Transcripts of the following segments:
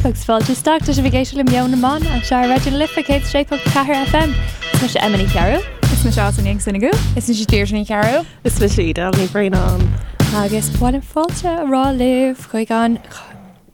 agus fáilte isteach. Tá sibh ag éisteacht le Meon na mBan anseo ar Raidió na Life 106.4 FM. Is mise Emma Ní Chearúil. Is mise Alison Ní Ann Is mise Deirdre Ní Chearúil. Is mise Edel Ní Bhraonáin. Agus ba mhaith liom fáilte a rá libh chuig an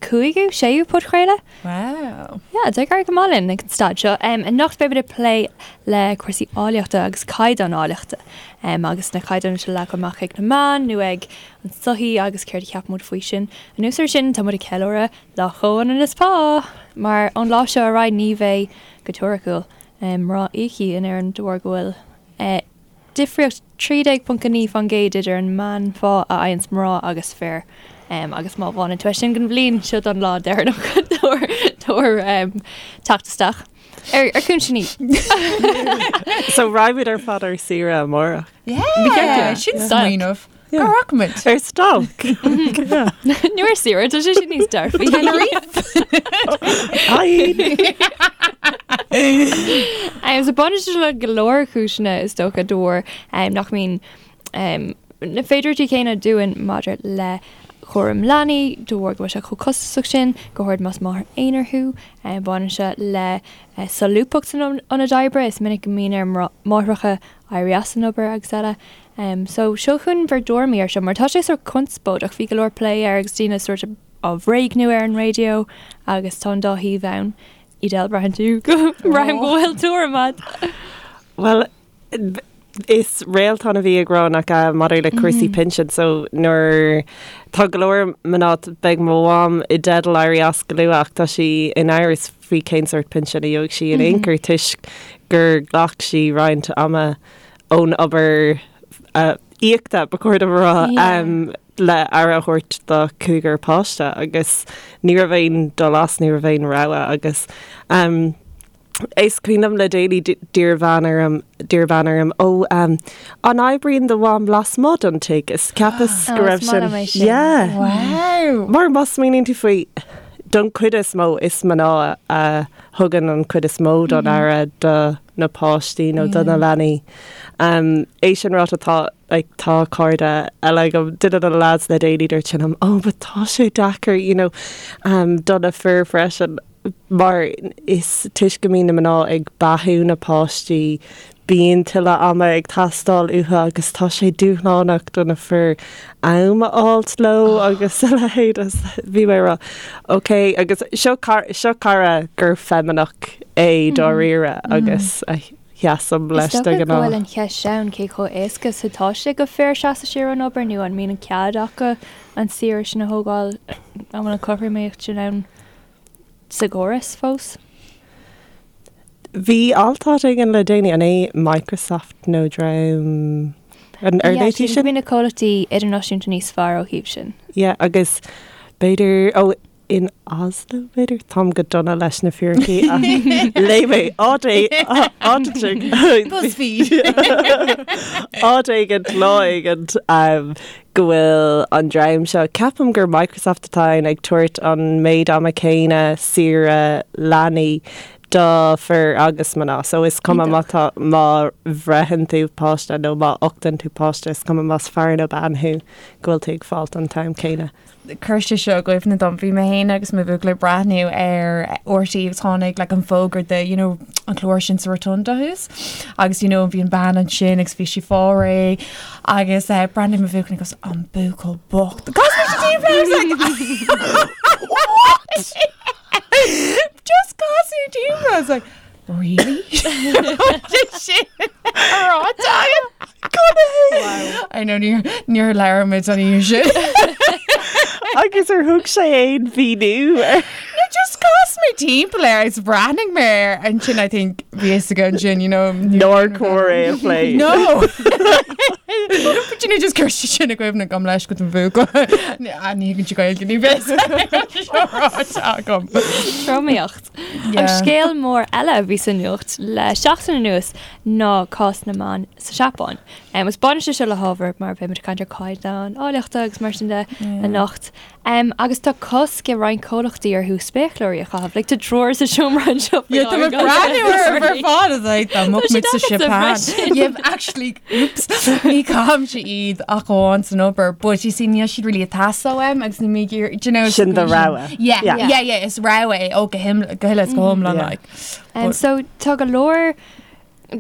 cúigiú, séú podchraoladh? Wow. Yeah, tá ag éirí go maith linn ag an staid seo. Um, anocht beimid ag plé le cúrsaí áilleachta agus caighdeán áilleachta. Um, agus na caighdeáin seo leagtha amach ag na meáin nó ag an tsochaí agus céard a cheapann muid faoi sin. Anuas air sin, tá muid ag ceiliúradh Lá Chomhionannas Pá! Mar ón lá seo ar aghaidh ní bheidh, go teoiriciúil, um, mná íoctha in Éirinn de bharr go bhfuil eh, Difríocht 13.9% idir an meánphá a fhaigheanns mná agus fir agus má bhaineann tú é sin den bhliain, seo don lá deireanach tabhair teacht isteach ar chúiseanna. So raghaimid ar fad ar saoire amárach. Yeah, sin smaoineamh. Cá rachaimid? Ar stailc. Nó ar saoire, tá sé sin níos dearfaí. Tenerife. So baineann sé le go leor cúiseanna is dócha de bharr nach mbíonn na féidearthachtaí céanna dúinn maidir le cúram leanaí, de bharr go bhfuil sé chomh costasach sin, go háirid más máthair aonair thú. Baineann sé le solúbthacht san ionad oibre, is minic go mbíonn ar mháithreacha éirí as an obair agus eile. So seo chugainn bhur dtuairimí air seo mar tá sé sórt conspóideach, bhí go leor plé air agus daoine sórt á bhréagnú ar an raidió agus tá an dá thaobh ann. Edel, braitheann tú go braithim go bhfuil tuairim agat. Bhuel, is Réaltán a bhí ag rá nach ea maidir le cúrsaí pinsin so nuair tá go leor mná beidh mo mham i dteideal éirí as go luath ach tá sí in amhras faoi cén sórt pinsin a gheobhaidh sí in aon chor toisc gur ghlac sí roinnt ama ón obair íoctha, ba chóir dom a rá, le aire a thabhairt dá cúigear páiste agus ní raibh aon dul as, ní raibh aon rogha agus is cuimhin liom le déanaí d'iarr bean orm, d'iarr bean orm, ó an oibríonn do mham lasmuigh den tigh? Is cheapas go raibh sin, yeah. Wow! Mar má smaoiníonn tú faoi, don chuid is mó is mná a thugann an chuid is mó don aire do na páistí nó do na leanaí. É sin ráite tá like tá cairde eile agam, duine de na lads le déanaí dúirt sé liom oh but tá sé deacair you know do na fir freisin mar is toisc go mbíonn na mná ag beathú na páistí bíonn tuilleadh ama ag teastáil uathu agus tá sé dúshlánach do na fir am a fháilt leo agus a leithéid. Bhí mé ag rá ok agus seo seo cara gur feimineach é dáiríre agus a sheasaim leis de ghnáth. Is dócha go bhfuil an cheist ann cé chomh éasca is atá sé do fir seasamh siar ón obair nó an mbíonn an cead acu an saoire sin a thógáil, an bhfuil an chothromaíocht sin ann sa gcóras fós? Bhí alt áit éigin le déanaí, an é Microsoft nó dream an ar Yeah, sin? Bíonn na comhlachtaí idirnáisiúnta níos fearr ó thaobh sin. Yeah, agus b'fhéidir, ó, in Oslo b'fhéidir, táim go dona leis na fíricí ach léigh mé áit áit BuzzFeed. áit éigin lá éigin go bhfuil an dream seo, ceapaim gur Microsoft atá ann, ag tabhairt an méid ama céanna saoire leanaí do fir agus mná. So is cuma má tá, má bhreitheann tú páiste nó má uchtann tú páiste, is cuma más fear nó bean thú, go bhfuil tú ag fáilt an t-am céanna. Chuir sé seo i gcuimhne dom, bhí mé féin agus mo bhuachaill ag breathnú ar RTÉ agus tháinig like an fógra de you know an clár sin sa Rotunda thuas agus you know bhí an bean ansin agus bhí sí ag fáil réidh agus eh, breathnaigh mo bhuachaill agus an buachaill bocht. Cos bhí sí timpeall air, I was like, what? Just casadh timpeall. I was like, really? Sin ráite agam. I know níor níor labhair muid an oíche sin. Agus ar thug sé aon mhíniú air? No, just chas mé timpeall air agus bhreathnaigh mé air ansin I think bhí fhios aige ansin, you know. Nár chóir é a phlé. No! But you know, just chuir sé sin i gcuimhne gabh mo leithscéal don bhuachaill. Ní thuigeann sé Gaeilge ní bheidh seo ráite agam. Tromaíocht. An scéal mór eile a bhí sa nuacht le seachtain anuas ná cás na mban sa Seapáin. Agus baineann sé seo le hábhar mar beidh muid ag caint ar caighdeán áilleachta agus mar sin de anocht. Agus tá cosc ag roinnt comhlachtaí orthu spéacláirí a chaitheamh. Like tá triúr sa seomra anseo faoi Yeah, tá mé láthair. breathnú ar ar fad is like dá mbeadh Tá muid sa siad agatsa Seapáin. freisin. Yeah, actually, oops. Ní. caithimse iad ach amháin san obair, but you see níl siad really ag teastáil uaim agus níl mé ag iarraidh, do you know, Sin do rogha. Yeah, yeah, yeah, yeah, is rogha é, ó go him- go huile is go hiomlán Yeah. like. Um, so tá go leor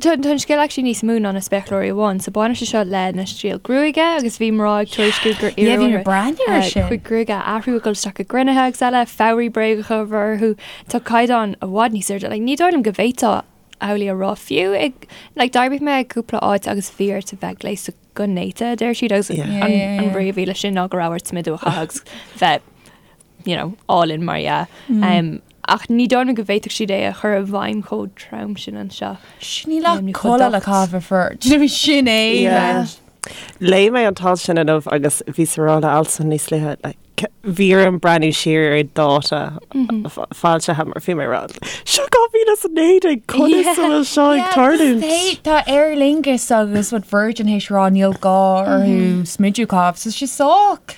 Tá an scéal actually níos mó ná na spéacláirí amháin, so baineann sé seo le na stíl gruaige agus bhí mná ag tuairisciú gur Yeah, bhí iarradh mé ag breathnú air sin. chuid gruaige a athrú ag dul isteach i gcruinnithe agus eile, fabhraí bréagacha a bheith orthu. Tá caighdeán i bhfad níos airde. Like, ní dóigh liom go bhféadfá amhlaidh a rá fiú ag like, d'oibrigh mé i gcúpla áit agus bhí ort a bheith gléasta go néata, a deir siad, agus Yeah. an, Yeah, yeah, an yeah. brí a bhí leis sin ná go raibh ort smideadh a chaitheamh agus bheith you know, álainn mar dhea. Um, ach ní dóigh liom go bhféadfadh siad é a chur i bhfeidhm chomh trom sin anseo. Sin níl ach Níl chomh culaith le docht. caitheamh ar fir. Do you know sin é? Yeah. like. Léigh mé an t-alt sin inniu agus bhí sa rá le Alison níos luaithe, like, bhí orm breathnú siar ar dáta foilsithe mar bhí mé ag rá, seo 2019 conas a bhfuil seo ag tarlúint? Tá Aer Lingus agus what Virgin théis rá níl gá orthu smideadh a chaitheamh, so sé sách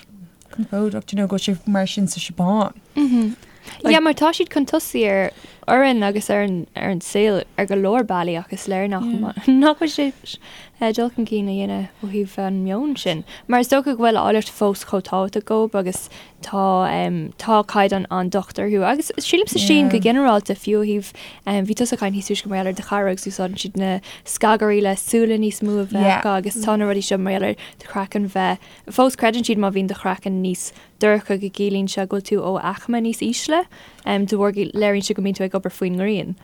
compordach, do you know, go bhfuil sé mar sin sa Seapáin. Yeah, mar tá siad chun tosaigh ar orainn agus ar an ar an saol ar go leor bealaí ach is léir nach nach bhfuil sé eh, dul chun cinn a dhéanamh ó thaobh an meon sin. Mar is dócha go bhfuil áilleacht fós chomh tábhachtach dóibh agus tá em, tá caighdeán an-docht orthu agus sílim sa Sín go ginearálta fiú ó thaobh em, bhí tusa ag caint níos túisce mar gheall ar do chara agus úsáideann siad na scagairí le súile níos mó a bheith Yeah. acu agus tá na rudaí seo mar gheall ar do chraiceann bheith Fós creideann siad má bhíonn do chraiceann níos dorcha go gciallaíonn sé go bhfuil tú ó aicme níos ísle, de bharr go léiríonn sé go mbíonn tú ag obair faoin ngrian.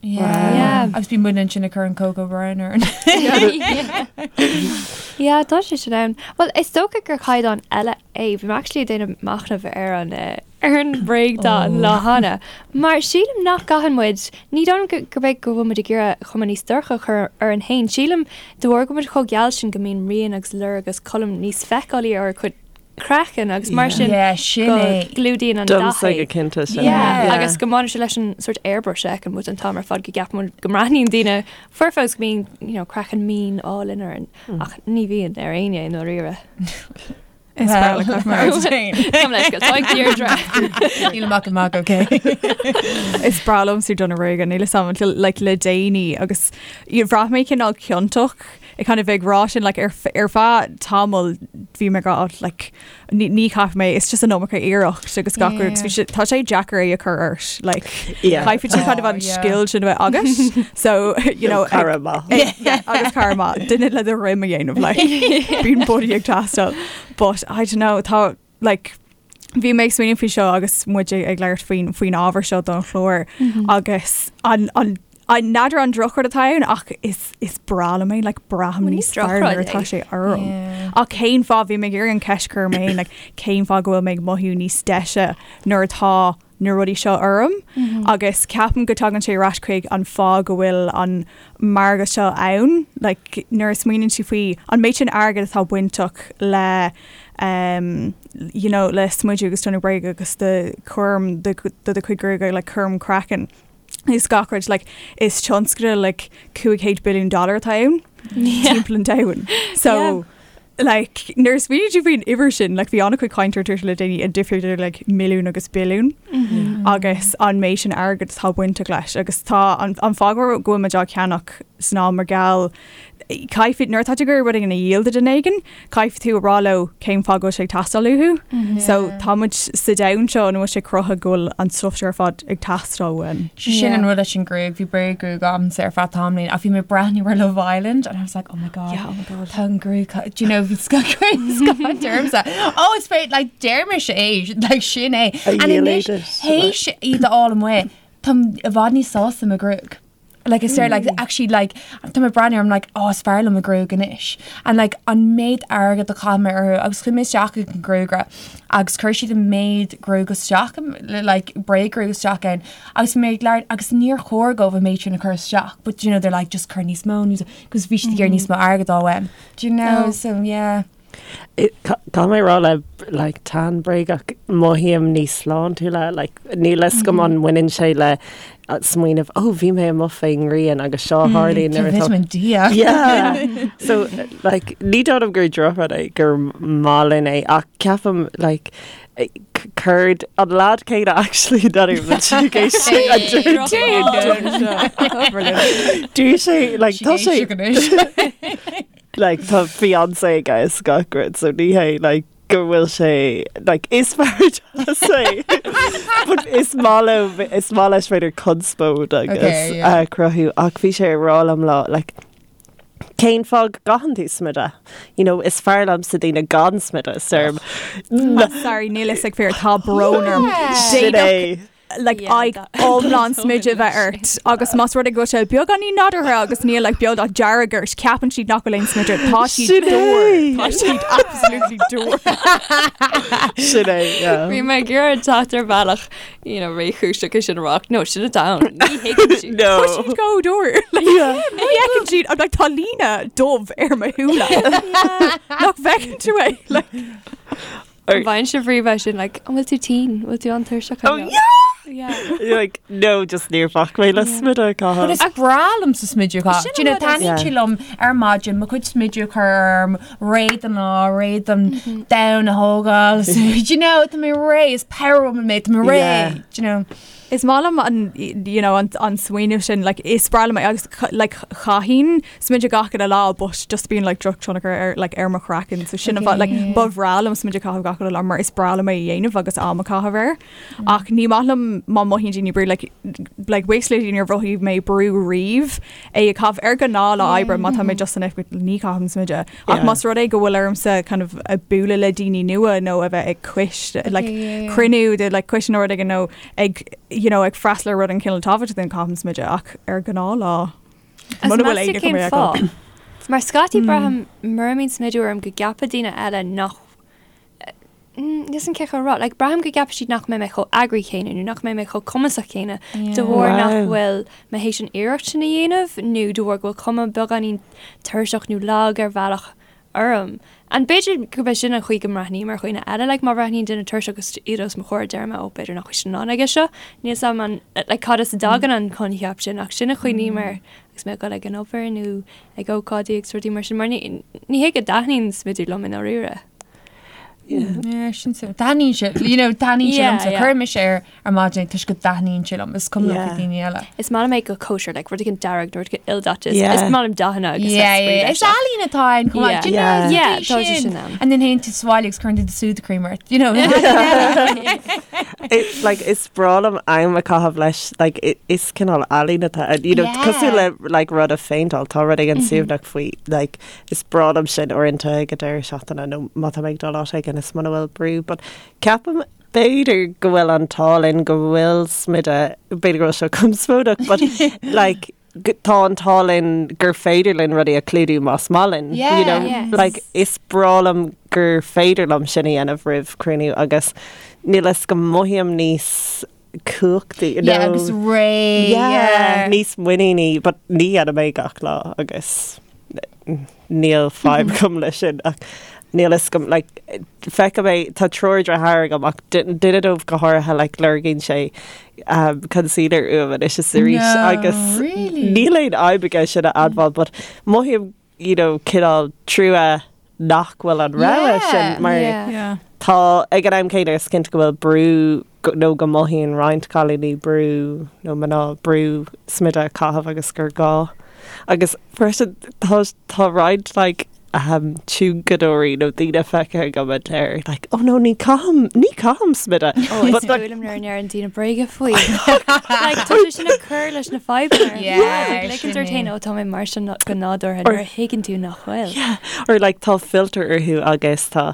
Yeah. Agus bíonn muid ansin ag cur an cocoa brown orainn. Yeah, tá sé sin ann. Well, is dócha gur caighdeán eile é. Bhí mé actually ag déanamh machnamh ar an ar an bhréagdath an lá cheana. Mar sílim nach gcaitheann muid, ní dóigh liom gurb é go bhfuil muid ag iarraidh cuma níos dorcha a chur orainn féin. Sílim de bharr go bhfuil muid chomh geal sin go mbíonn rian agus lorg agus colm níos feiceálaí ar ár gcuid craicinn agus mar sin Yeah, sin go é. gclúdaíonn an dath Domsa é. go cinnte sin. Yeah, Yeah. agus go mbaineann sé leis an sort airbrush a fheiceann muid an t-am ar fad go gceapann muid go mbreathnaíonn daoine foirfe agus go mbíonn you know, craiceann mín álainn orainn ach ní bhíonn ar éinne i ndáiríre. Is breá le mar féin. Gabh mo leithscéal, tá ag Deirdre. Níl amach amach, ok. Is breá liomsa dath na gruaige níl a fhios agam like, le déanaí agus bhraith mé cineál ciontach ag kind of ag rá sin like, ar, ar feadh tamall bhí mé ag rá like, ní, ní chaithfidh mé it's just an iomarca iarracht agus gach rud agus bhí sé tá sé deacair é a chur ort like, Yeah. caithfidh tú kind of Oh, an yeah. scil sin a bheith agat so you know ag- Cara maith. Yeah, agus cara maith duine le do dhroim a dhéanamh like bíonn buddy ag teastáil but I don't know tá like bhí mé ag smaoineamh faoi seo agus muid ag ag labhairt faoin faoin ábhar seo don chlár agus an an an n'fheadar an drochrud atá ann ach is is breá liom é like braithim Well, ní níos fearr nuair drochrud atá é. sé orm. Yeah. Ach cén fáth bhí mé ag iarraidh an ceist a chur orm féin like cén fáth go bhfuil mé ag mothú níos deise nuair atá na rudaí seo orm agus ceapaim go dtagann sé ar ais chuig an fáth go bhfuil an margadh seo ann, like nuair a smaoiníonn tú faoi an méid sin airgid atá bainteach le um, you know, le smideadh agus donnú bréige agus do chúram do do do chuid gruaige like cúram craicinn is gach rud like is tionscadal like 500 billiún dollar atá ann timpeall an domhain. So Yeah. like nuair a smaoiníonn tú faoin uimhir sin like bhí an-chuid cainte ar Twitter le déanaí an difríocht idir like milliún agus billiún agus an méid sin airgid atá bainteach leis agus tá an, an fáth go bhfuil muid á ceannach ná mar gheall caithfidh nuair atá tú ag iarraidh rud éigin a dhíol do dhuine éigin caithfidh tú a rá leo cén fáth go bhfuil sé ag teastáil uathu. So tá muid sa domhan seo ina bhfuil sé cruthaithe go bhfuil an stuff seo ar fad ag teastáil uainn. Sin an rud leis an gruaig, bhí bréaggruaig agamsa ar feadh tamaillín ach bhí mé ag breathnú ar Love Island and I was like, oh my god, Yeah, oh my god. Tá an gruaig, do you know, bhí scoth ormsa. Oh, it's great, like deir mise é, like sin é. A And anois, dhíolated, théis iad a fháil amuigh, táim i bhfad níos sásta mo ghruaig. Like is there like actually like tá mé ag breathnú I'm like oh is fearr liom mo ghruaig anois. And like an méid airgead a chaith mé orthu agus chuaigh mé isteach ag an gruagaire agus chuir siad an méid gruaig isteach like bréaggruaig isteach ann agus mé ag labhairt agus níor chóir dóibh an méid sin a chur isteach but you know they're like just cuir níos mó níos because bhí siad ag iarraidh níos mó airgead á uaim. Do you know Oh. so yeah. Caithfidh mé rá le like tan bréagach mothaím níos sláintiúla like níl a fhios agam an mbaineann sé le smaoineamh ó bhí mé amuigh faoin ngrian agus seo a tharlaíonn nuair atá Vitamin D. Yeah. So like ní dóigh liom gur drochrud é gur maith linn é ach ceapaim like céard an lad céanna actually Dúirt sé like tá sé Like tá fiancé aige is gach rud so ní hé like go bhfuil sé like is fear deas é but is maith leo is maith leis b'fhéidir conspóid agus Okay, yeah. uh, cruthú ach bhí sé ag rá liom lá like cén fáth go gcaitheann tú smideadh? You know, is fearr liomsa daoine gan smideadh is deirim Sorry, níl fhios ag fir tá brón orm. Sin é. like aghaidh iomlán smideadh bheith ort agus más rud é go bhfuil sé beagáinín nádúrtha agus níl like beodáil dearg ort ceapann siad nach bhfuil aon smideadh tá siad dúr tá siad absolutely dúr. Sin é, yeah. Bhí mé ag iarraidh teacht ar bhealach you know, réchúiseach é sin a rá ach no sin atá ann ní thuigeann siad. No. Tá siad go dúr like, ní fheiceann siad I'm like tá líne dubh ar mo shúile nach bhfeiceann tú é like An bhfaigheann sibh riamh é sin like, an bhfuil tú tinn, bhfuil tú an-tuirseach Oh yeah! Yeah. Like, no, just níor bhac mé le smideadh a But chaitheamh. is breá liomsa smideadh a chaitheamh. Sin Do you know, an rud is- taitníonn sé liom ar maidin, mo chuid smideadh a chur orm, réidh don lá, réidh don domhan a thógáil. So, do you know, tá mé réidh, is power woman mé, tá mé réidh, Yeah. do you know. Is maith liom an you know an an smaoineamh sin like is breá liom é agus like chaithfinn smideadh gach uile lá but just bíonn like drochthionchar ar like ar mo chraiceann so sin an fáth like ba bhreá liom smideadh a chaitheamh gach uile lá mar is breá liom é a dhéanamh agus am a chaitheamh air ach ní maith liom má mothaíonn daoine brú like like buíochas le Dia níor mhothaigh mé brú riamh é a chaitheamh ar ghnáthlá oibre má tá mé just san oifig ní chaithim smideadh ach más rud é go bhfuil ormsa kind of a bualadh le daoine nua nó a bheith ag coiste like cruinniú de like coiste nó rud éigin nó ag you know ag freastal ar rud den chineál tábhachtach then caithim smideadh ach ar ghnáthlá Agus muna bhfuil meas tú éinne cén chun mé a fáth? fheiceáil. Mar scaití braithim mura mbíonn smideadh orm go gceapfaidh daoine eile nach níl 'fhios a'm cén chaoi a rá, like braithim go gceapfaidh siad nach mbeidh mé chomh eagraithe céanna nó nach mbeidh mé chomh cumasach céanna de bharr nach bhfuil mé théis an iarracht sin a dhéanamh nó de bharr go bhfuil cuma beagáinín tuirseach nó lag ar bhealach orm. And b'fhéidir gurb é sin an chaoi go mbreathnaím ar dhaoine eile, like má bhreathnaíonn duine tuirseach agus iad os mo chomhair deirim oh b'fhéidir nach bhfuil siad in ann aige seo. Níl 'fhios a'm an, like cad as a dtagann an coincheap sin ach sin an chaoi a mbím air agus mé ag dul ag an obair nó ag ócáidí agus rudaí mar sin mar ní, ní hé go dtaitníonn smideadh liom i ndáiríre. Yeah, sin so. Taitníonn sé, you know, taitníonn sé Yeah, liomsa. yeah. Cuirim mise air ar maidin toisc go dtaitníonn sé liom. Is cuma liom faoi Yeah. daoine eile. Is maith liom é go kosher, like rud éigin dearg nó rud éigin ildaite. Is Yeah. is maith liom dathanna agus Yeah, like, yeah, yeah. Is ealaín atá ann chomh maith. Yeah. Do you know, Yeah. is Yeah, é tá sé sin. sin ann. And then théann tú sa bhaile agus cuireann tú do Sudocrem cream ort, you know. It, like, is breá liom am a chaitheamh leis, like, i- is cineál ealaín atá ann, you know, Yeah. cosúil le like, rud a phéinteáil, tá rud éigin suaimhneach faoi, like, Is breá liom sin uaireanta ag an deireadh seachtaine nó má tá mé ag dul áit éigin is muna bhfuil brú but ceapaim b'fhéidir go bhfuil an t-ádh linn go bhfuil smideadh, b'fhéidir go bhfuil seo conspóideach but like tá an t-ádh linn gur féidir linn rudaí a chlúdú más maith linn. Yeah. You know, Yes. like is breá liom gur féidir liom sin a dhéanamh roimh cruinniú agus níl 'fhios agam mothaím níos cumhachtaí you Yeah, know. agus réidh. Yeah, Yeah. níos muiníní, but ní dhéanaim é gach lá agus níl fadhb agam leis sin ach níl 'fhios agam like feicim é tá triúr deartháir agam ach duine dóibh go háirithe like lorgaíonn sé um, concealer uaim anois is arís No, agus really? níl aon fhadhb aige sin a admháil but mothaím you know, cineál trua nach bhfuil an rogha Yeah, sin mar yeah. Yeah. Tá, ag an am céanna, is cinnte go bhfuil brú nó go mothaíonn roinnt cailíní brú nó mná brú smideadh a chaitheamh agus gur gá. Agus freisin tá tá roinnt like ahem tionchadóirí nó daoine feicthe agam a deir like oh no ní chaithim ní chaithim smideadh. Oh, is But like fuath liom nuair a ndeireann daoine bréaga faoi. Like tá sé sin ag cur leis na fadhbanna. Yeah, Like ligeann sin ort féin é. ó tá mé mar sin go nádúrtha nuair a thuigeann tú nach bhfuil. Yeah, or like tá filter orthu agus tá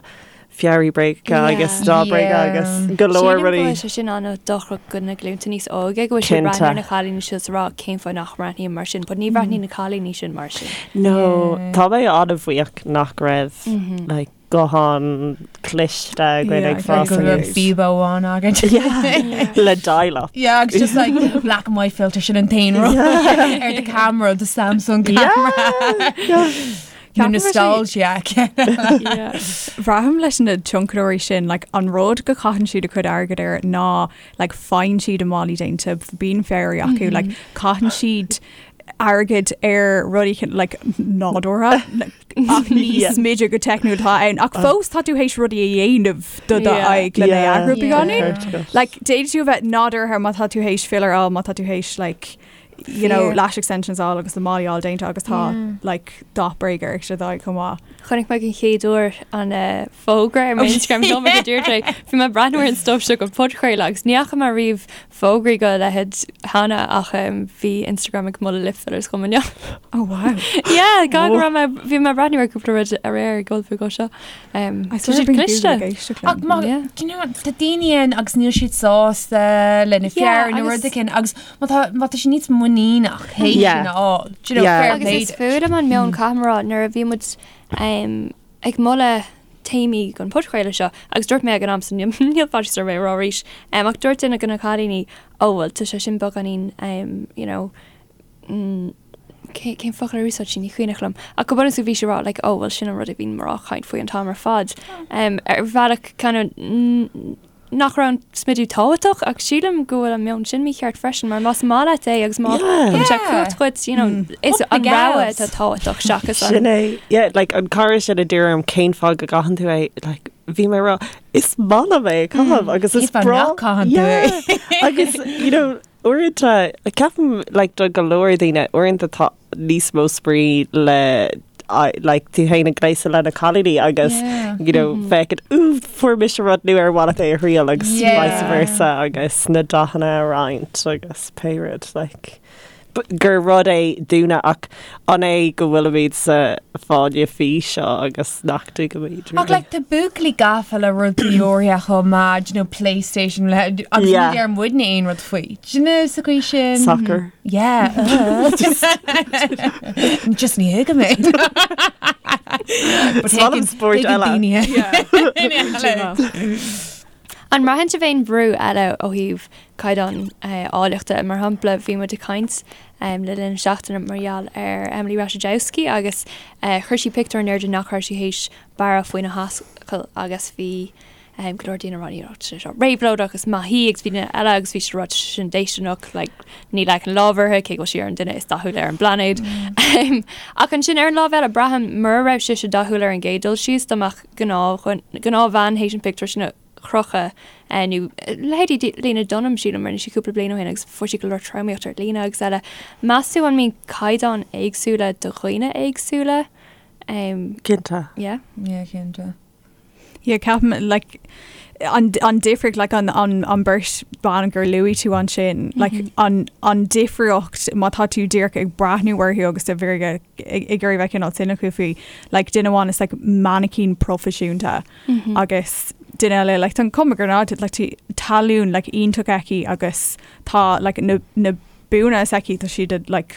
fearaí bréagacha agus Yeah. dath bréige Yeah. agus go leor Sílim go rudaí. bhfuil sé sin an-dochrach do na glúnta níos óige go bhfuil siad Cinnte. breathnú ar na cailíní seo is rá cén fáth nach mbreathnaím mar sin, but ní bhreathnaíonn na cailíní sin mar sin. No, tá mé an-bhuíoch nach raibh like guthán cliste againn Yeah, ag I fás Go raibh aníos. Bebo amháin agat. Yeah, le dial-up. Yeah, agus just like black and white filter sin an t-aon rud ar the camera, the Samsung camera. Yeah. No Ceapaim sé- nostalgia. Braithim leis na tionchadóirí sin like, an rud go caitheann siad a cuid airgid air ná like, faigheann siad a málaí déanta bíonn fearaí acu mm -hmm. like, caitheann siad airgid ar rudaí cin- like, nádúrtha like, ach ní Yeah. smideadh go teicniúil atá ann ach fós tá tú théis rudaí a dhéanamh do do Yeah. aghaidh le Yeah. eagrú Yeah. beagáinín. Ceart agat. Like, d'fhéadfadh tú a bheith nádúrtha má tá tú théis filler á má tá tú théis like, you know, lash extensions á fháil agus na malaí all déanta agus tá like dath bréige ar siad aghaidh chomh maith. Chonaic mé den chéad uair an fógra ar m'Instagram dom ag dúirt é. Bhí mé ag breathnú ar an stuif seo don podchraoladh agus ní fhaca mé riamh fógraí dá leithéid cheana ach bhí Instagram ag moladh lip fillers dhom inniu. Oh wow. Yeah, go raibh mé bhí mé ag breathnú ar cúpla rud aréir ag ullmhú dó seo. Tá siad cliste. Ach má, do you know, tá daoine ann agus níl siad sásta lena fear nó rud éigin agus má tá má tá siad níos muiníneach théis sin a fháil. Do you know, fair Agus play is fuath liom an meon caithfidh mé a rá nuair a bhí muid ag moladh téamaí don podchraoladh seo agus dúirt mé ag an am so níl faitíos orm é a rá arís ach dúirt duine de na cailíní oh bhuel tá sé sin beagáinín you know cén focal a úsáid sí ní cuimhneach liom ach go bunúsach bhí sí ag rá like oh bhuel sin an rud a bhíonn mná ag caint faoi an t-am ar fad ar bhealach kind of nach raibh an smidiú tábhachtach ach sílim go bhfuil an meon sin mícheart freisin mar más maith leat é agus má thugann sé cumhacht dhuit you know is an rogha atá tábhachtach seachas an Sin é, yeah, like an cara sin a d'iarr orm cén fáth go gcaitheann tú é, like bhí mé ag rá is maith liom é a chaitheamh agus is breá nach gcaitheann tú é. Agus you know uaireanta ceapaim like do go leor daoine uaireanta tá níos mó spraoi le like tú féin ag gléasadh le na cailíní agus you know féachaint ooh fuair mise rud nua ar mhaith leat é a thriail agus vice versa agus na dathanna a roinnt agus pé rud like gur rud é dúinne ach an é go bhfuilimid sa fáinne fí seo agus nach dtuigimid Ach like tá buachaillí gafa le rudaí áirithe chomh maith, do you know, PlayStation le agus ní deir muidne aon rud faoi. Do you know, sa chaoi sin. Soccer. Yeah. Just ní thuigim é. Is maith liom spóirt eile. An mbraitheann sibh aon bhrú eile ó thaobh caighdeán áilleachta? Mar shampla, bhí muid ag caint le linn na seachtaine mar gheall ar Emily Ratajkowski agus chuir sí pictiúr in airde nach raibh sí théis bearradh faoina hascaill agus bhí go leor daoine ag rá you know tá sé seo réabhlóideach is maith í agus bhí daoine eile agus bhí siad ag rá tá sé sin déistineach like ní leagfainn lámh uirthi cé go bhfuil sí ar an duine is dathúla ar an bplainéad. Ach ansin ar an lámh eile braithim mura raibh sise dathúil ar an gcéad dul síos dá mbeadh gnáthbhean théis an pictiúr sin a chrochadh nó leithéidí Lena Dunham sílim rinne sí cúpla bliain ó shin agus fuair sí go leor tromaíocht ar líne agus eile. Meas tú an mbíonn caighdeáin éagsúla do dhaoine éagsúla? Cinnte. Yeah. Yeah, cinnte. Yeah, ceapaim like an an difríocht like an an an beirt ban gur luaigh tú ansin like an an difríocht má tá tú díreach ag breathnú orthu agus a bheith ag ag iarraidh bheith cineál cynical faoi like duine amháin is like mainicín proifisiúnta agus duine eile like tá an cuma gur ná like tá talún like iontach aici agus tá like na na buanna is aici tá siad like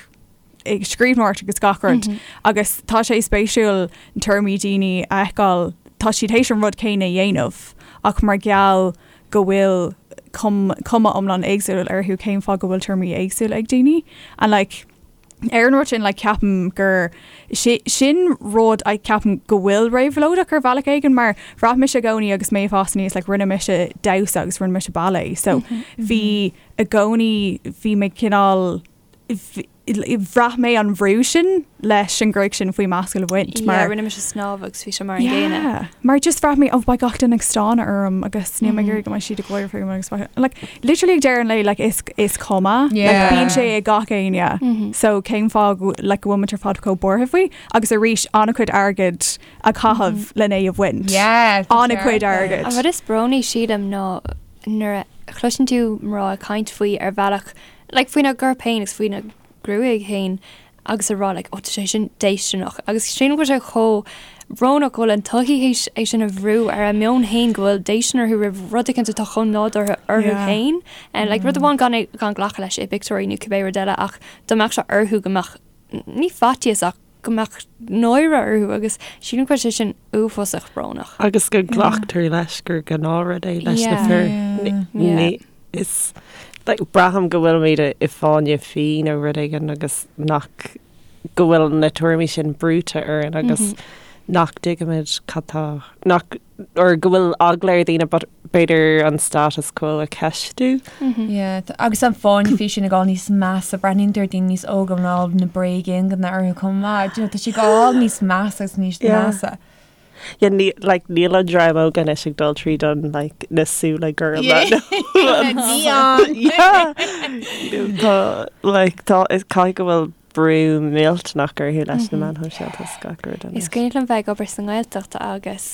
ag scríbhneoireacht agus gach rud agus tá sé spéisiúil tuairimí daoine a fheiceáil, tá siad théis an rud céanna a dhéanamh ach mar gheall go bhfuil cuma iomlán éagsúil orthu cén fáth go bhfuil tuairimí éagsúla ag daoine and like ar an rud sin like ceapaim gur sin rud a ceapaim go bhfuil réabhlóideach ar bhealach éigin mar bhraith mise i gcónaí agus mé ag fás aníos like rinne mise damhsa agus rinne mise ballet so bhí i gcónaí bhí mé cineál bhraith mé an bhrú sin leis an ghruaig sin faoi m'ascaill a bhaint mar. Yeah, rinne mise snámh agus bhí sé mar an gcéanna. Yeah, mar just bhraith mé oh beidh gach duine ag stánadh orm agus níl mé ag iarraidh go mbeidh siad ag gáire fúm agus like literally ag deireadh an lae like is is cuma like bíonn sé ag gach éinne so cén fáth go like go bhfuil muid ar fad chomh buartha faoi agus arís an-chuid airgid a chaitheamh lena é a bhaint. Yeah, An-chuid airgid. An rud is brónaí sílim ná nuair a chloiseann tú mná ag caint faoi ar bhealach like faoina gcorp féin agus faoina gruaig féin agus a rá like oh tá sé sin déistineach agus sílim go bhfuil sé chomh brónach go bhfuil an tsochaí théis é sin a bhrú ar a meon féin go bhfuil déistin orthu roimh rud éicint atá chomh nádúrtha orthu Yeah. féin and like rud amháin gan é gan glacadh leis i bpictiúirí nó cibé rud eile ach dá mbeadh sé orthu go mbeadh ní faitíos ach go mbeadh náire orthu agus sílim go bhfuil sé sin uafásach brónach. Agus go nglactar leis gur gnáthrud é leis na fir. Ní is like braithim go bhfuilimid i fáinne fí nó rud éigin agus nach go bhfuil na tuairimí sin brúite orainn agus nach dtuigimid cad tá nach or go bhfuil eagla ar dhaoine but b'fhéidir an status quo a cheistiú. Yeah, agus an fáinne fí sin ag dul níos measa, breathnaíonn tú ar daoine níos óga ná na bréag-ingne orthu chomh maith, do you know, tá sé ag dul níos measa agus níos Yeah. measa. Yeah, ní, like, níl an dream óg anois ag dul tríd an, like, na súile gorma. Neon! Yeah! Tá, like, tá, is caithfidh go bhfuil brú millteanach orthu leis na meáin shóisialta is gach rud Is anois. cuimhin liom bheith ag obair sa nGaeltacht agus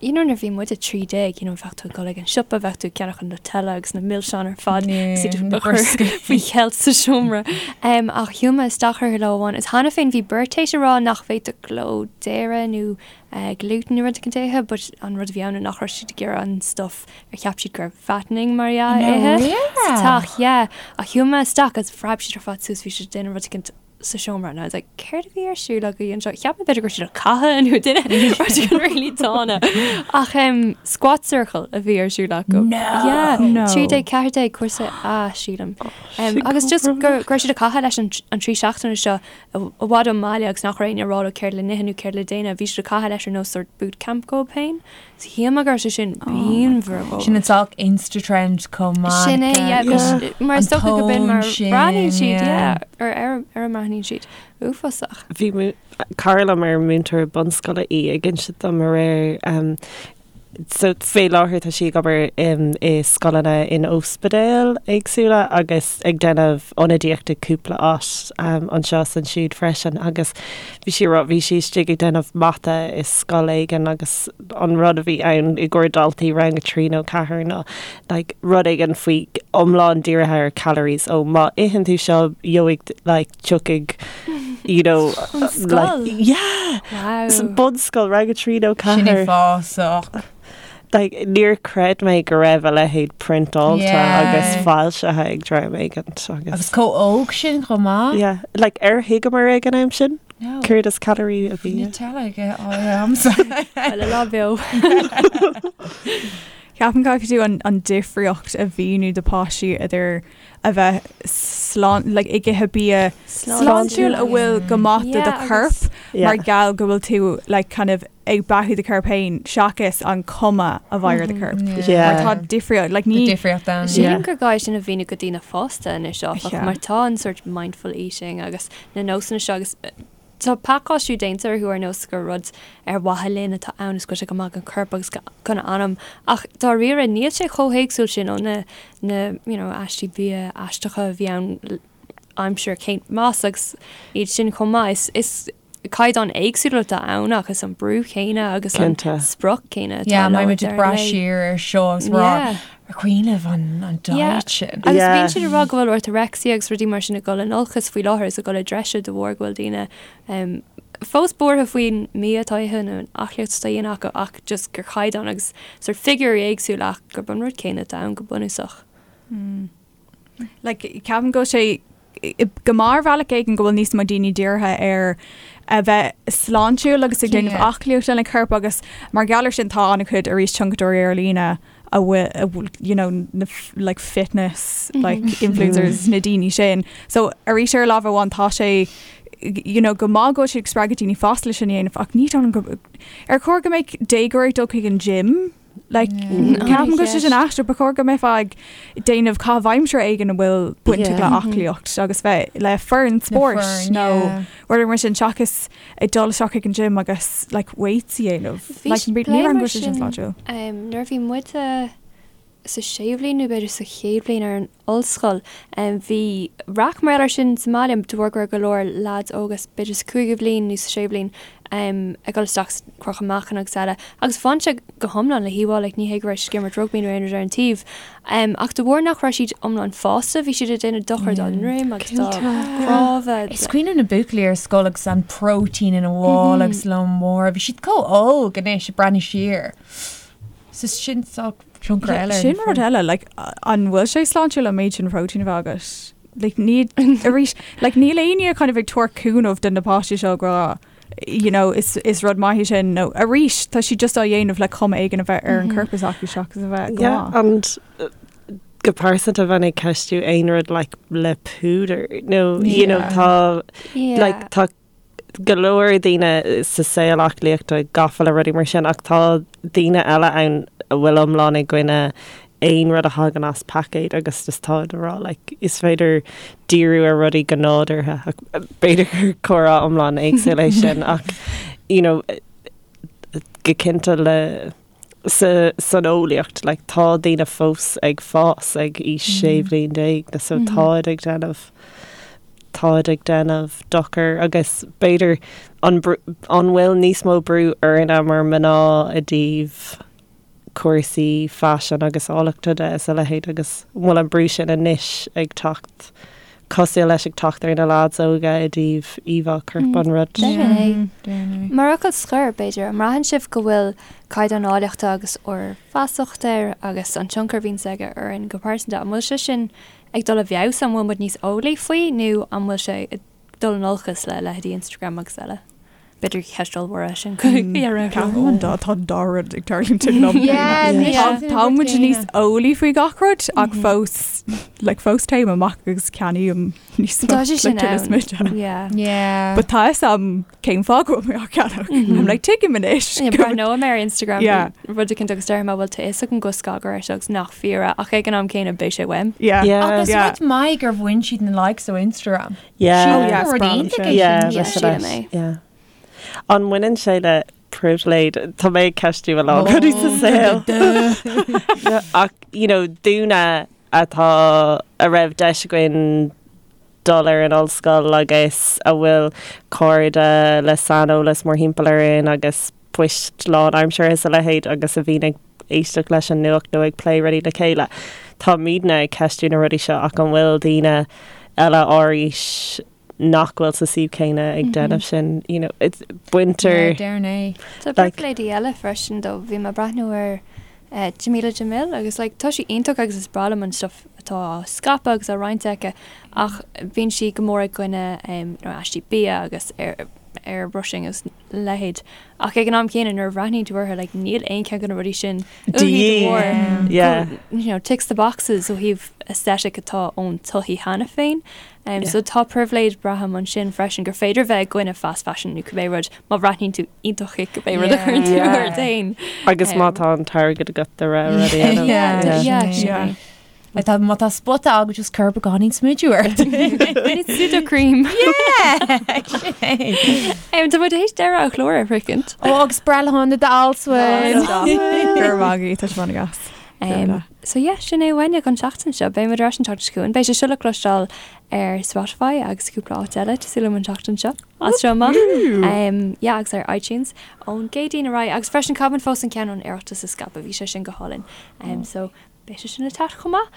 you know nuair a bhí muid 13 you know bheadh tú ag dul ag an siopa, bheadh tú ag ceannach an Nutella agus na milseáin ar fad agus iad na a chur brioscaí. faoi cheilt sa seomra. Um, ach shiúil mé isteach orthu lá amháin is cheana féin bhí beirt théis a rá nach bhféadfadh leo dairy nó uh, gluten nó rud éicint a ithe, but an rud a bhí ann ná nach raibh siad ag iarraidh an stuff ar cheap siad gur fattening mar dhea a ithe sa teach, yeah. Ach shiúil mé isteach agus phreab siad ar fad suas, bhí siad ag déanamh rud éicint sa seomra and I was like céard a bhí ar siúl agaibh anseo? Cheap mé b'fhéidir go raibh siad ag caitheamh nó duine rud éigin really dána. Ach um, squat circle a bhí ar siúl acu. No! Yeah, No. 13, 14 cúrsa A sílim. Um, Sin agus just chomh go go raibh siad ag caitheamh leis an, an 3 seachtaine seo i bhfad ón mbaile agus nach raibh éinne ag rá leo céard le n-ithe nó céard le déanamh, bhí siad ag caitheamh leis ar nós sort boot camp dóibh féin. So shíl mé go raibh sé sin pianmhar dhóibh. Sin an saghas Insta-trend chomh maith. Sin é, yeah, Yeah. mar is An dócha go b'in mar tón sin, breathnaíonn siad, yeah. yeah, ar ar ar a mbreathnaíonn siad. Uafásach. Bhí mú- cara liom ar múinteoir bunscoile í ag insint dom aréir um, So fé láthair tá sí ag obair i scoileanna in ospidéil éagsúla agus ag déanamh ionadaíocht i cúpla áit anseo is ansiúd freisin agus bhí sí ag rá bhí sí istigh ag déanamh mata i scoil éigin agus an rud a bhí ann i gcomhair daltaí rang 3 nó 4 ná like rud éigin faoi iomlán dírithe ar calories ó má itheann tú seo gheobhaidh like tiocfaidh you know An scoil? like yeah Wow. bunscoil rang 3 nó Sin 4 uafásach. like níor chreid mé go raibh a leithéid priontáilte Yeah. agus foilsithe ag dream éigin Agus agus chomh óg sin chomh maith. yeah like ar thuigeamar ag an am sin No. céard is calorie a bhí Nutella ag agamsa. Well, a lá beo. Ceapaim caithfidh tú an, an difríocht a mhíniú do páistí idir a bheith slán, like, ag ithe bia sláintiúil a bhfuil go maith do do chorp mar gheall go bhfuil tú like, kind of ag beathú do chorp féin seachas an cuma a bheidh ar do chorp. Yeah. Mar tá difríocht, like, ní difríocht ann. Sílim gur gá é sin a mhíniú go daoine fásta anois áfach, Yeah. mar tá an sort mindful eating agus na nósanna seo agus Tá pacáistiú déanta orthu ar nós gur rud ar mhaithe linn atá ann is go bhfuil sé go maith don chorp agus don anam ach dáiríre níl sé chomh héagsúil sin ó na na you know aistí bia aisteacha a bhí ann aimsir Kate Moss agus iad sin chomh maith. Is is caighdeáin éagsúla atá ann ach is an brú céanna agus an Cinnte. sprioc céanna atá Yeah, leo mbeidh muid ag deireadh brath an lae. siar ar seo agus rá Yeah. ar cuimhin libh an an Yeah. diet sin. Agus Yeah. bíonn siad ag rá go bhfuil orthorexia agus rudaí mar sin ag dul in olcas faoi láthair is ag dul i dtreise de bharr go bhfuil daoine um, fós buartha faoin mbia atá á ithe nó an aclaíocht atá á dhéanamh acu ach just gur caighdeán agus sort figiúirí éagsúla ach gurb an rud céanna atá ann go bunúsach. Like, ceapaim go bhfuil sé go maith ar bhealach éigin go bhfuil níos mó daoine dírithe ar a bheith sláintiúil agus ag déanamh Yeah. aclaíocht lena corp agus mar gheall air sin tá an-chuid arís tionchadóirí ar líne a bhfuil a bhfuil you know na f- like fitness like influencers na daoine sin. So arís ar lámh amháin tá sé you know go maith go bhfuil siad ag spreagadh daoine fásta leis sin a dhéanamh ach ní dóigh liom go ar chóir go mbeadh déagóir ag dul chuig an gym? Like ceapaim go bhfuil sé sin aisteach ba chóir go mbeifeá ag déanamh caitheamh aimsire éigin a bhfuil bainteach le aclaíocht agus bheith le foireann spóirt nó rud mar sin seachas ag dul isteach chuig an gym agus like weights a dhéanamh. Bhí Like plé ní raibh mar go sin sin sláintiúil. nuair a bhí muid sa séú bhliain nó b'fhéidir sa chéad bhliain ar an ollscoil. Bhí raic mar gheall air sin sa mbaile de bharr go raibh go leor leaids óga, b'fhéidir sa chúigiú bhliain nó sa séú bhliain, ag dul isteach sa crochadh meáchain agus eile agus bhain sé go hiomlán le híomhá, like ní hé go raibh siad ag imirt rugbaí nó aon rud ar an taobh. Ach de bharr nach raibh siad iomlán fásta, bhí siad ag déanamh dochar dá ndroim agus dá gcnámha. Is cuimhin liom na buachaillí ar scoil agus an protein ina mhála agus lón mór, bhí siad chomh óg anois ag breathnú siar. So sin saghas tionchar eile. Sin rud eile, like, an bhfuil sé sláintiúil an méid sin protein a bheith agat? Like, ní, arís, like, níl éinne kind of ag tabhairt cúnamh do na páistí seo ag rá, you know, is, is rud maith é sin, nó arís, tá siad just á dhéanamh le cuma éigin a bheith ar an corp s'acu seachas a bheith go Yeah, maith. and uh, go pearsanta bheinn ag ceistiú aon rud like le púdar nó you know Yeah. tá Yeah. like tá go leor daoine sa saol aclaíochta gafa le rudaí mar sin ach tá daoine eile ann a bhfuil iomlán i gcoinne aon rud a thagann as paicéad agus just tá ag rá like is féidir díriú ar rudaí go nádúrtha ach b'fhéidir gur comhrá iomlán éagsúil é sin ach you know. go cinnte le sa san eolaíocht like tá daoine fós ag fás ag aois 16 bhliain na so táid ag déanamh táid ag déanamh dochar agus b'fhéidir an an bhfuil níos mó brú orainne mar mná i dtaobh cúrsaí faisin agus áilleachta de is a leithéid agus an bhfuil an brú sin anois ag teacht cosúil leis ag teacht ar na lads óga i dtaobh íomhá coirp an rud. Definitely. Mar fhocal scoir, b'fhéidir, an mbraitheann sibh go bhfuil caighdeán áilleachta agus ár bhfeasacht air agus an tionchar a bhíonns aige orainn go pearsanta, an bhfuil sé sin ag dul i bhfeabhas, an bhfuil muid níos eolaí faoi nó an bhfuil sé ag dul in olcas le leithéidí Instagram agus eile? B'fhéidir ceist ollmhór é sin. Ceapaim an dá tá an dá rud ag tarlúint ag an am céanna. Tá muid níos eolaí faoi gach rud ach fós like fós téim amach agus ceannaím níos mó Tá sé sin like tuilleadh ann. smidte. Yeah. Yeah. But tá fhios a'm cén fáth go bhfuil mé á ceannach. I'm like tuigim anois. Yeah, Breathnóidh mé ar Instagram Yeah. rud eicínt agus déarfaidh mé bhuel tá fhios agam go scagaire é seo agus nach fíor é ach ag an am céanna beidh sé uaim. Yeah. Yeah. Agus Yeah. rud maith gur bhain siad na likes ó Instagram. Yeah. Oh, yeah, Rud is breá liom iontach sin. é sin. Yeah, Yeah, leis sílim leis. é. Yeah. An mbaineann sé le pribhléid? Tá mé ag ceistiú a lán rudaí sa saol. Ach, you know, dúinne atá a raibh deis againn dul ar an ollscoil agus a bhfuil cairde le saineolas mórthimpeall orainn agus poist lánaimseartha is a leithéid agus a bhíonn ag éisteacht leis an nuacht nó ag plé rudaí le chéile. Táimidne ag ceistiú na rudaí seo ach an bhfuil daoine eile ár aois nach bhfuil sa suíomh céanna ag déanamh sin, you know, it's baintear. Déarfainn é. Tá Like- pribhléidí eile freisin though. Bhí mé ag breathnú ar eh, Jameela Jamil agus like tá sí iontach agus is breá liom an stuff atá á scaipeadh agus á roinnt aici ach bíonn sí go mór i gcoinne em, you know, aistí bia agus air airbrushing agus leithéid. Ach ag an am céanna nuair a bhreathnaíonn tú uirthi like níl aon cheann de na rudaí sin uaithi de bharr Yeah. you know, ticks the boxes ó thaobh aesthetic atá ón tsochaí cheana féin. Um, so tá pribhléid braithim ansin freisin gur féidir bheith i gcoinne fast fashion nó cibé rud má bhreathnaíonn tú iontach i cibé rud a chuireann tú Yeah. ort féin. Agus má tá an t-airgead agat de réir rudaí a dhéanamh. Yeah, Yeah, yeah, sin yeah. é. Like tá má tá spota agat just cuir beagáinín smideadh ort. It's Sudocrem. Yeah, sin é. Um, tá muid théis deireadh an chláir a shroichint. Ó agus breithlá shona d'Alswyn. Gur mhaith tá sé an-deas. Um, so yeah, sin é uainne don tseachtain seo. Beidh muid ar ais an tseachtain seo chugainn. Beidh sé seo le cloisteáil ar Spotify agus cúpla áit eile tá súil agam an tseachtain seo. As seo amach. Um, yeah, agus ar iTunes ón gCéadaoin ar aghaidh. Agus freisin caithfimid fós an ceann ón Oireachtas a scaipeadh. Bhí sé sin go hálainn. Um, so beidh sé sin le teacht chomh maith.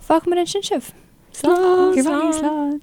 Fágfaimid ansin sibh. Slán. Slán. Slán.